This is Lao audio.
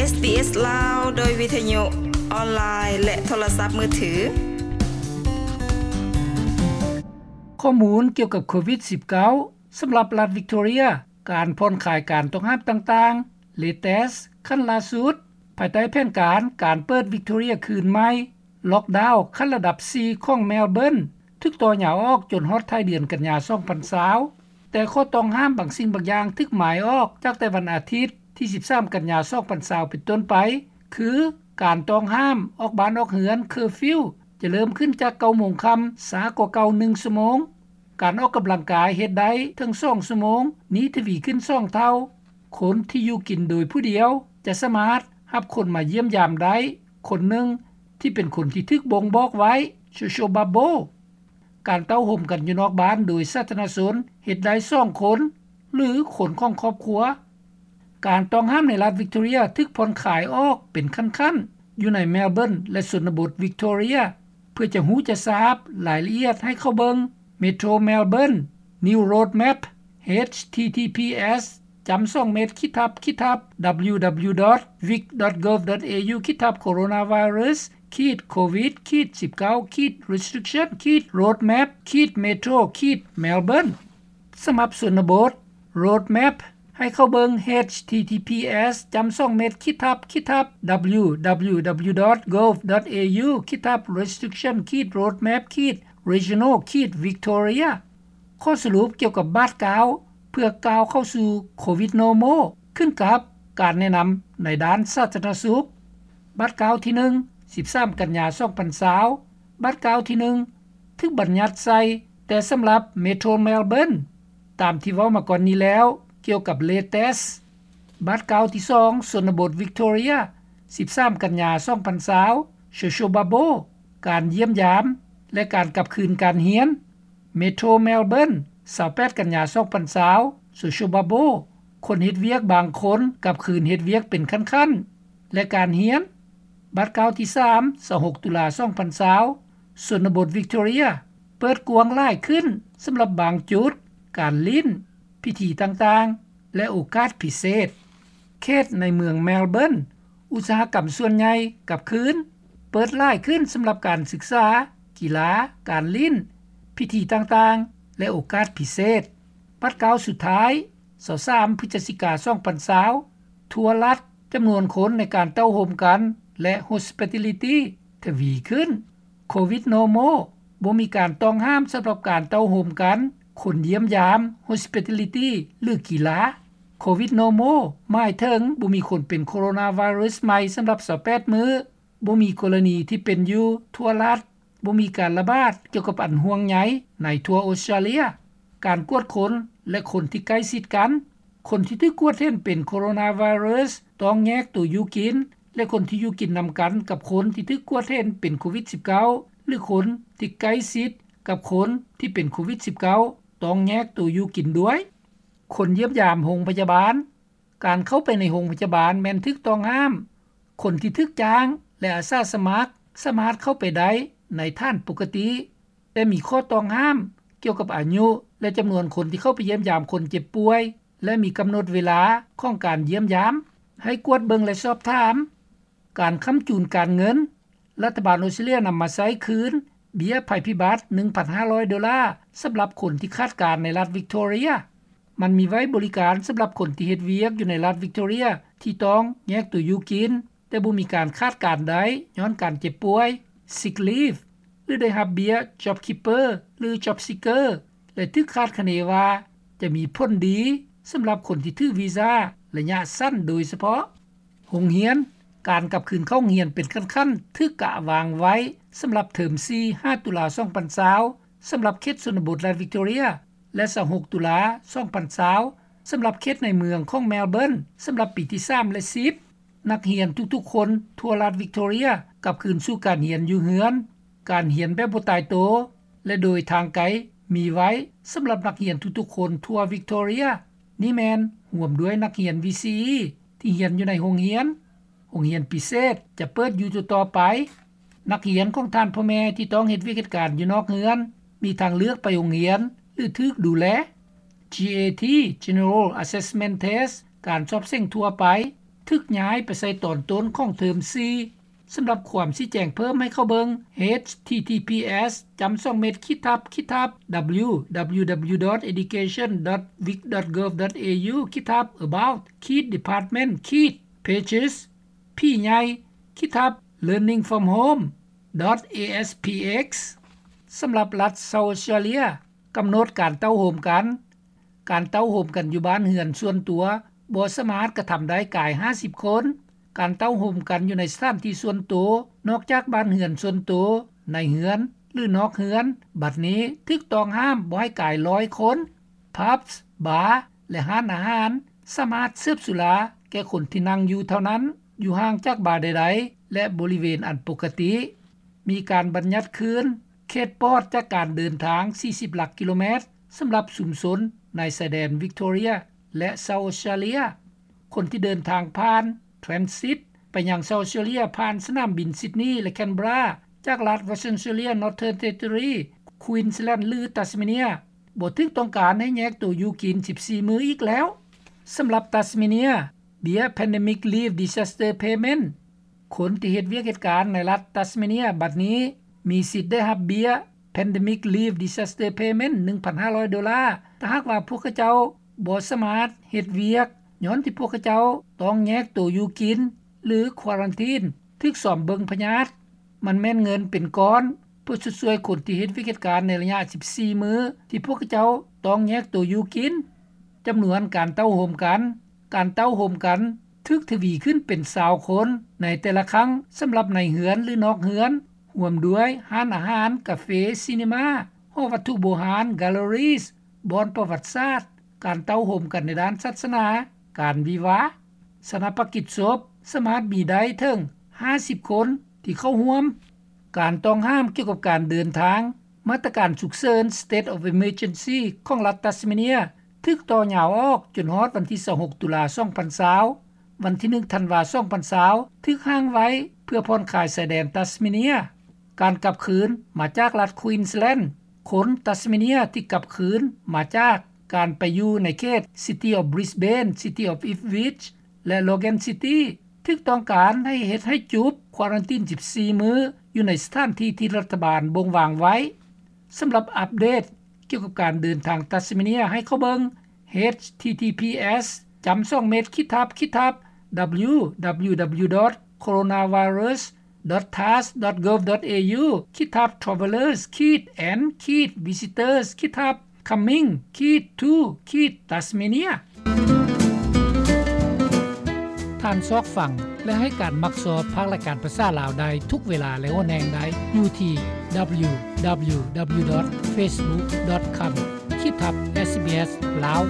ເອສ ລາວ ໂດຍວິທະຍຸອອນລາຍ ແລະ ໂທລະສັບມືຖື. ຂໍ້ມູນກ່ຽວກັບໂຄວິດສິບເກົ້າ ສຳລັບລັດວິກຕໍເຣຍ, ການຜ່ອນຄາຍການຕ້ອງຫ້າມຕ່າງໆ, ເລເຕສຂັ້ນລ່າສຸດ, ພາຍໃຕ້ແຜນການການເປີດວິກຕໍເຣຍຄືນໃໝ່, ລັອກດາວຂັ້ນລະດັບສີ່ຂອງແມລເບີນ ຖືກຕໍ່ຍາວອອກຈົນຮອດທ້າຍເດືອນກັນຍາ ສອງພັນຊາວ, ແຕ່ຂໍ້ຕ້ອງຫ້າມບາງສິ່ງບາງຢ່າງຖືກໝາຍອອກຈາກແຕ່ວັນອາທິດທີ ສິບສາມ ກັນຍາ ສອງພັນຊາວ ເປັນຕົ້ນໄປ ຄື ການຕ້ອງຫ້າມອອກບ້ານອອກເຮືອນ ເຄີຟິວ ຈະເລີ່ມຂຶ້ນຈາກ ເກົ້າໂມງຄ່ຳ ຊ້າກວ່າເກົ່າ ໜຶ່ງຊົ່ວໂມງ. ການອອກກຳລັງກາຍເຮັດໄດ້ເຖິງ ສອງຊົ່ວໂມງ, ນີ້ທະວີຂຶ້ນ ສອງເທົ່າ. ຄົນທີ່ຢູ່ກິນໂດຍຜູ້ດຽວ ຈະສາມາດຮັບຄົນມາຢ້ຽມຢາມໄດ້ ຄົນໜຶ່ງ ທີ່ເປັນຄົນທີ່ຖືກບົ່ງບອກໄວ້ ໂຊຊຽວບັບເບິ້ນ. ການເຕົ້າໂຮມກັນຢູ່ນອກບ້ານໂດຍສາທາລະນະຊົນ ເຮັດໄດ້ ສອງຄົນ ຫຼື ຄົນຂອງຄອບຄົວ. ການຕ້ອງຫ້າມໃນລັດວິກຕໍເຣຍຖືກຜ່ອນຄາຍອອກເປັນຂັ້ນໆ ຢູ່ໃນແມລເບີນ ແລະ ຊົນນະບົດວິກຕໍເຣຍ. ເພື່ອຈະຮູ້ຈະຊາບລາຍລະອຽດ ໃຫ້ເຂົ້າເບິ່ງ Metro Melbourne New Roadmap ເອດ ທີ ທີ ພີ ເອສ ຈ້ຳສອງ ເມັດ ຂີດທັບ ຂີດທັບ ດັບເບິນຢູ ດັບເບິນຢູ ດອດ ວິກ ດອດ ໂກບ ດອດ ເອ ຢູ ຂີດທັບ ໂຄໂຣນາໄວຣັສ ຂີດ ໂຄວິດ ຂີດ ສິບເກົ້າ ຂີດ ເຣສຕຣິກຊັນ ຂີດ ໂຣດແມັບ ຂີດ ເມໂທຣ ຂີດ ແມລເບີນ. ສຳລັບຊົນນະບົດ ໂຣດແມັບ ໃຫ້ເຂົ້າເບິ່ງ ເອດ ທີ ທີ ພີ ເອສ ຈ້ຳສອງ ເມັດ ຂີດທັບ ຂີດທັບ ດັບເບິນຢູ ດັບເບິນຢູ ດັບເບິນຢູ ດອດ ໂກບ ດອດ ເອ ຢູ ຂີດທັບ ເຣສຕຣິກຊັນ ຂີດ ໂຣດແມັບ ຂີດ ຣີເຈຍນອລ ຂີດ ວິກຕໍເຣຍ. ຂໍ້ສະຫຼຸບກ່ຽວກັບບາດກ້າວ ເພື່ອກ້າວເຂົ້າສູ່ໂຄວິດນໍມໍ ຂຶ້ນກັບການແນະນຳໃນດ້ານສາທາລະນະສຸກ. ບາດກ້າວທີໜຶ່ງ ສິບສາມ ກັນຍາ ສອງພັນຊາວ, ບາດກ້າວທີໜຶ່ງ ຖືກບັນຍັດໃສ່ແຕ່ສຳລັບເມໂທຣແມລເບີນ ຕາມທີ່ເວົ້າມາກ່ອນນີ້ແລ້ວ ກ່ຽວກັບເລເຕສ. ບາດກ້າວທີສອງ ຊົນນະບົດວິກຕໍເຣຍ ສິບສາມ ກັນຍາ ສອງພັນຊາວ, ໂຊຊຽວບັບເບິ້ນ ການຢ້ຽມຢາມ ແລະ ການກັບຄືນການຮຽນ. ເມໂທຣແມລເບີນ ຊາວແປດ ກັນຍາ ສອງພັນຊາວ, ໂຊຊຽວບັບເບິ້ນ ຄົນເຮັດວຽກບາງຄົນກັບຄືນເຮັດວຽກເປັນຂັ້ນໆ ແລະ ການຮຽນ. ບາດກ້າວທີສາມ ຊາວຫົກ ຕຸລາ ສອງພັນຊາວ, ຊົນນະບົດວິກຕໍເຣຍ ເປີດກວ້າງຫຼາຍຂຶ້ນສຳລັບບາງຈຸດ, ການຫຼິ້ນ, ພິທີຕ່າງໆ ແລະ ໂອກາດພິເສດ. ເຂດໃນເມືອງແມລເບີນ ອຸດສາຫະກຳສ່ວນໃຫຍ່ກັບຄືນ, ເປີດຫຼາຍຂຶ້ນສຳລັບການສຶກສາ, ກິລາ, ການຫຼິ້ນ, ພິທີຕ່າງໆ ແລະ ໂອກາດພິເສດ. ບາດກ້າວສຸດທ້າຍ ຊາວສາມ ພຶສຈິກາ ສອງພັນຊາວ, ທົວລັດ ຈຳນວນຄົນໃນການເຕົ້າໂຮມກັນ ແລະ ໂຮສປິຕາລິຕີ ທະວີຂຶ້ນ. ໂຄວິດນໍມໍ ບໍ່ມີການຕ້ອງຫ້າມສຳລັບການເຕົ້າໂຮມກັນ, ຄົນຢ້ຽມຢາມ, ໂຮສປິຕາລິຕີ ຫຼື ກິລາ. ໂຄວິດນໍມໍ ໝາຍເຖິງບໍ່ມີຄົນເປັນໂຄໂຣນາໄວຣັສໃໝ່ສຳລັບ ຊາວແປດ ມື້, ບໍ່ມີກໍລະນີທີ່ເປັນຢູ່ທົ່ວລັດ, ບໍ່ມີການລະບາດກ່ຽວກັບອັນຫ່ວງໃຍໃນທົ່ວອົດສະຕຣາເລຍ. ການກວດຄົນ ແລະ ຄົນທີ່ໃກ້ຊິດກັນ. ຄົນທີ່ຖືກກວດເຫັນເປັນໂຄໂຣນາໄວຣັສ ຕ້ອງແຍກໂຕຢູ່ກິນ ແລະ ຄົນທີ່ຢູ່ກິນນຳກັນກັບຄົນທີ່ຖືກກວດເຫັນເປັນໂຄວິດສິບເກົ້າ ຫຼື ຄົນທີ່ໃກ້ຊິດກັບຄົນທີ່ເປັນໂຄວິດສິບເກົ້າ ຕ້ອງແຍກໂຕຢູ່ກິນດ້ວຍ. ຄົນຢ້ຽມຢາມໂຮງພະຍາບານ. ການເຂົ້າໄປໃນໂຮງພະຍາບານແມ່ນຖືກຕ້ອງຫ້າມ. ຄົນທີ່ຖືກຈ້າງ ແລະ ອາສາສະໝັກ ສາມາດເຂົ້າໄປໄດ້ໃນຖານປົກກະຕິ, ແຕ່ມີຂໍ້ຕ້ອງຫ້າມກ່ຽວກັບອາຍຸ ແລະ ຈຳນວນຄົນທີ່ເຂົ້າໄປຢ້ຽມຢາມຄົນເຈັບປ່ວຍ ແລະ ມີກຳນົດເວລາຂອງການຢ້ຽມຢາມ. ໃຫ້ກວດເບິ່ງ ແລະ ສອບຖາມ. ການຄ້ຳຈູນການເງິນ. ລັດຖະບານອົດສະຕຣາເລຍນຳມາໃຊ້ຄືນເບ້ຍໄພພິບັດ ໜຶ່ງພັນຫ້າຮ້ອຍໂດລາ ສຳລັບຄົນທີ່ຂາດການໃນລັດວິກຕໍເຣຍ. ມັນມີໄວ້ບໍລິການສຳລັບຄົນທີ່ເຮັດວຽກຢູ່ໃນລັດວິກຕໍເຣຍ ທີ່ຕ້ອງແຍກໂຕຢູ່ກິນ ແຕ່ບໍ່ມີການຂາດການໄດ້ຍ້ອນການເຈັບປ່ວຍ ຊິກລີບ ຫຼື ໄດ້ຮັບເບ້ຍ JobKeeper ຫຼື JobSeeker ແລະ ຖືກຄາດຄະເນວ່າຈະມີຜົນດີສຳລັບຄົນທີ່ຖືວີຊາໄລຍະສັ້ນໂດຍສະເພາະ. ໂຮງຮຽນ. ການກັບຄືນເຂົ້າໂຮງຮຽນເປັນຂັ້ນໆ ຖືກກະວາງໄວ້ສຳລັບເທີມສີ່ ຫ້າ ຕຸລາ ສອງພັນຊາວ ສຳລັບເຂດຊົນນະບົດລັດວິກຕໍເຣຍ ແລະ ຊາວຫົກ ຕຸລາ ສອງພັນຊາວ ສຳລັບເຂດໃນເມືອງຂອງແມລເບີນ ສຳລັບປີທີສາມ ແລະ ສິບ. ນັກຮຽນທຸກໆຄົນທົ່ວລັດວິກຕໍເຣຍກັບຄືນສູ່ການຮຽນຢູ່ເຮືອນ. ການຮຽນແບບບໍ່ຕາຍໂຕ ແລະ ໂດຍທາງໄກມີໄວ້ສຳລັບນັກຮຽນທຸກໆຄົນທົ່ວວິກຕໍເຣຍ. ນີ້ແມ່ນຮວມດ້ວຍນັກຮຽນ VCE ທີ່ຮຽນຢູ່ໃນໂຮງຮຽນ. ໂຮງຮຽນພິເສດຈະເປີດຢູ່ຕໍ່ໆໄປ. ນັກຮຽນຂອງທ່ານພໍ່ແມ່ທີ່ຕ້ອງເຮັດວຽກເຮັດການຢູ່ນອກເຮືອນ ມີທາງເລືອກໄປໂຮງຮຽນ ຫຼື ຖືກດູແລ. GAT General Assessment Test ການສອບເສັງທົ່ວໄປ. ຖືກຍ້າຍໄປໃສ່ຕອນຕົ້ນຂອງເທີມສີ່. ສຳລັບຄວາມຊີ້ແຈງເພີ່ມໃຫ້ເຂົ້າເບິ່ງ ເອດເອັດ ທີ ທີ ພີ ເອັດ ສອງ ເມັດ ຄິດທັບ ຄິດທັບ ດັບເບິນຢູ ດັບເບິນຢູ ດັບເບິນຢູ ດອດ ເອດູເຄຊັນ ດອດ ວິກ ດອດ ເກີບ ດອດ ເອຢູ ຄິດທັບ ອະບາວ ຂີດ ດີພາດເມັນ ຂີດ ເພເຈສ ພີໃຫຍ່ ຄິດທັບ ເລີນນິງ ຟຣອມ ໂຮມ ດອດ ເອເອັສ ພີ ເອັກ ສຳລັບລັດເຊົາອອສເຕຣເລຍ ກຳນົດການເຕົ້າໂຮມກັນ. ການເຕົ້າໂຮມກັນຢູ່ບ້ານເຮືອນສ່ວນຕົວບໍ່ສາມາດກະທຳໄດ້ກາຍຫ້າສິບຄົນ. ການເຕົ້າໂຮມກັນຢູ່ໃນສະຖານທີ່ສ່ວນໂຕ ນອກຈາກບ້ານເຮືອນສ່ວນໂຕ, ໃນເຮືອນ ຫຼື ນອກເຮືອນ ບັດນີ້ຖືກຕ້ອງຫ້າມບໍ່ໃຫ້ກາຍຮ້ອຍຄົນ. ຜັບ, ບາ ແລະ ຮ້ານອາຫານສາມາດເສີບສຸລາແກ່ຄົນທີ່ນັ່ງຢູ່ເທົ່ານັ້ນ, ຢູ່ຫ່າງຈາກບາໃດໆ ແລະ ບໍລິເວນອັນປົກກະຕິ. ມີການບັນຍັດຄືນເຂດປອດຈາກການເດີນທາງສີ່ສິບຫຼັກກິໂລແມັດ ສຳລັບຊຸມຊົນໃນຊາຍແດນວິກຕໍເຣຍ ແລະ ເຊົາອອສເຕຣເລຍ. ຄົນທີ່ເດີນທາງຜ່ານ transit ໄປຍັງເຊົາອອສເຕຣເລຍ ຜ່ານສະໜາມບິນຊິດນີ ແລະ ແຄນເບຣາ ຈາກລັດ Western Australia, Northern Territory, Queensland ຫຼື Tasmania ບໍ່ຖືກຕ້ອງການໃຫ້ແຍກໂຕຢູ່ກິນສິບສີ່ມື້ອີກແລ້ວ. ສຳລັບ Tasmania, ເບ້ຍ Pandemic Leave Disaster Payment ຄົນທີ່ເຮັດວຽກເຮັດການໃນລັດ Tasmania ບັດນີ້ມີສິດໄດ້ຮັບເບ້ຍ Pandemic Leave Disaster Payment ໜຶ່ງພັນຫ້າຮ້ອຍໂດລາ ຖ້າຫາກວ່າພວກເຂົາເຈົ້າບໍ່ສາມາດເຮັດວຽກ ຍ້ອນທີ່ພວກເຂົາເຈົ້າຕ້ອງແຍກໂຕຢູ່ກິນ ຫຼື ຄວາຣັນທີນ ຖືກຊອມເບິ່ງພະຍາດ. ມັນແມ່ນເງິນເປັນກ້ອນ ເພື່ອຊົດຊ່ວຍຄົນທີ່ເຮັດວຽກເຮັດການໃນໄລຍະສິບສີ່ມື້ ທີ່ພວກເຂົາເຈົ້າຕ້ອງແຍກໂຕຢູ່ກິນ. ຈຳນວນການເຕົ້າໂຮມກັນ. ການເຕົ້າໂຮມກັນຖືກທະວີຂຶ້ນເປັນຊາວຄົນໃນແຕ່ລະຄັ້ງ ສຳລັບໃນເຮືອນ ຫຼື ນອກເຮືອນ, ຮ່ວມດ້ວຍຮ້ານອາຫານ, ກາເຟ, ຊີນີມາ, ຫໍວັດຖຸໂບຮານ, galleries, ບ່ອນປະຫວັດສາດ, ການເຕົ້າໂຮມກັນໃນດ້ານສາສະໜາ, ການວິວາ, ຊານາປະກິດສົບ ສາມາດມີໄດ້ເຖິງຫ້າສິບຄົນທີ່ເຂົ້າຮ່ວມ. ການຕ້ອງຫ້າມກ່ຽວກັບການເດີນທາງ. ມາດຕະການສຸກເສີນ State of Emergency ຂອງລັດ Tasmania ຖືກຕໍ່ຍາວອອກຈົນຮອດວັນທີຊາວຫົກ ຕຸລາ ສອງພັນຊາວ. ວັນທີໜຶ່ງ ທັນວາ ສອງພັນຊາວ ຖືກຫ້າງໄວ້ເພື່ອຜ່ອນຄາຍຊາຍແດນ Tasmania. ການກັບຄືນມາຈາກລັດ Queensland. ຄົນ Tasmania ທີ່ກັບຄືນມາຈາກການໄປຢູ່ໃນເຂດ City of Brisbane, City of Ipswich ແລະ Logan City ຖືກຕ້ອງການໃຫ້ເຮັດໃຫ້ຈຸບຄວາຣັນທີນສິບສີ່ມື້ ຢູ່ໃນສະຖານທີ່ທີ່ລັດຖະບານບົ່ງວາງໄວ້. ສຳລັບອັບເດດກ່ຽວກັບການເດີນທາງ Tasmania ໃຫ້ເຂົ້າເບິ່ງ ເອດເອັດ ທີ ທີ ພີ ເອັດ ສອງ ເມັດ ຄິດທັບ ຄິດທັບ ດັບເບິນຢູ ດັບເບິນຢູ ດັບເບິນຢູ ດອດ ໂຄໂຣນາໄວຣັສ ດອດ ທາສ ດອດ ເກີບ ດອດ ເອຢູ ຄິດທັບ ທຣາເວລເລີສ ຂີດ ແອນ ຂີດ ວິຊິເຕີສ ຄິດທັບ ຄັມມິງ ຂີດ ທູ ຂີດ ຕັສເມເນຍ. ທ່ານຊອກຟັງ ແລະ ໃຫ້ການມັກຊອບພາກລາຍການພາສາລາວໄດ້ທຸກເວລາ ແລະ ຫົນແຫ່ງໃດ ຢູ່ທີ່ ດັບເບິນຢູ ດັບເບິນຢູ ດັບເບິນຢູ ດອດ ເຟສບຸກ ດອດ ຄອມ ຂີດ ເອສ ບີ ເອສ ລາວ.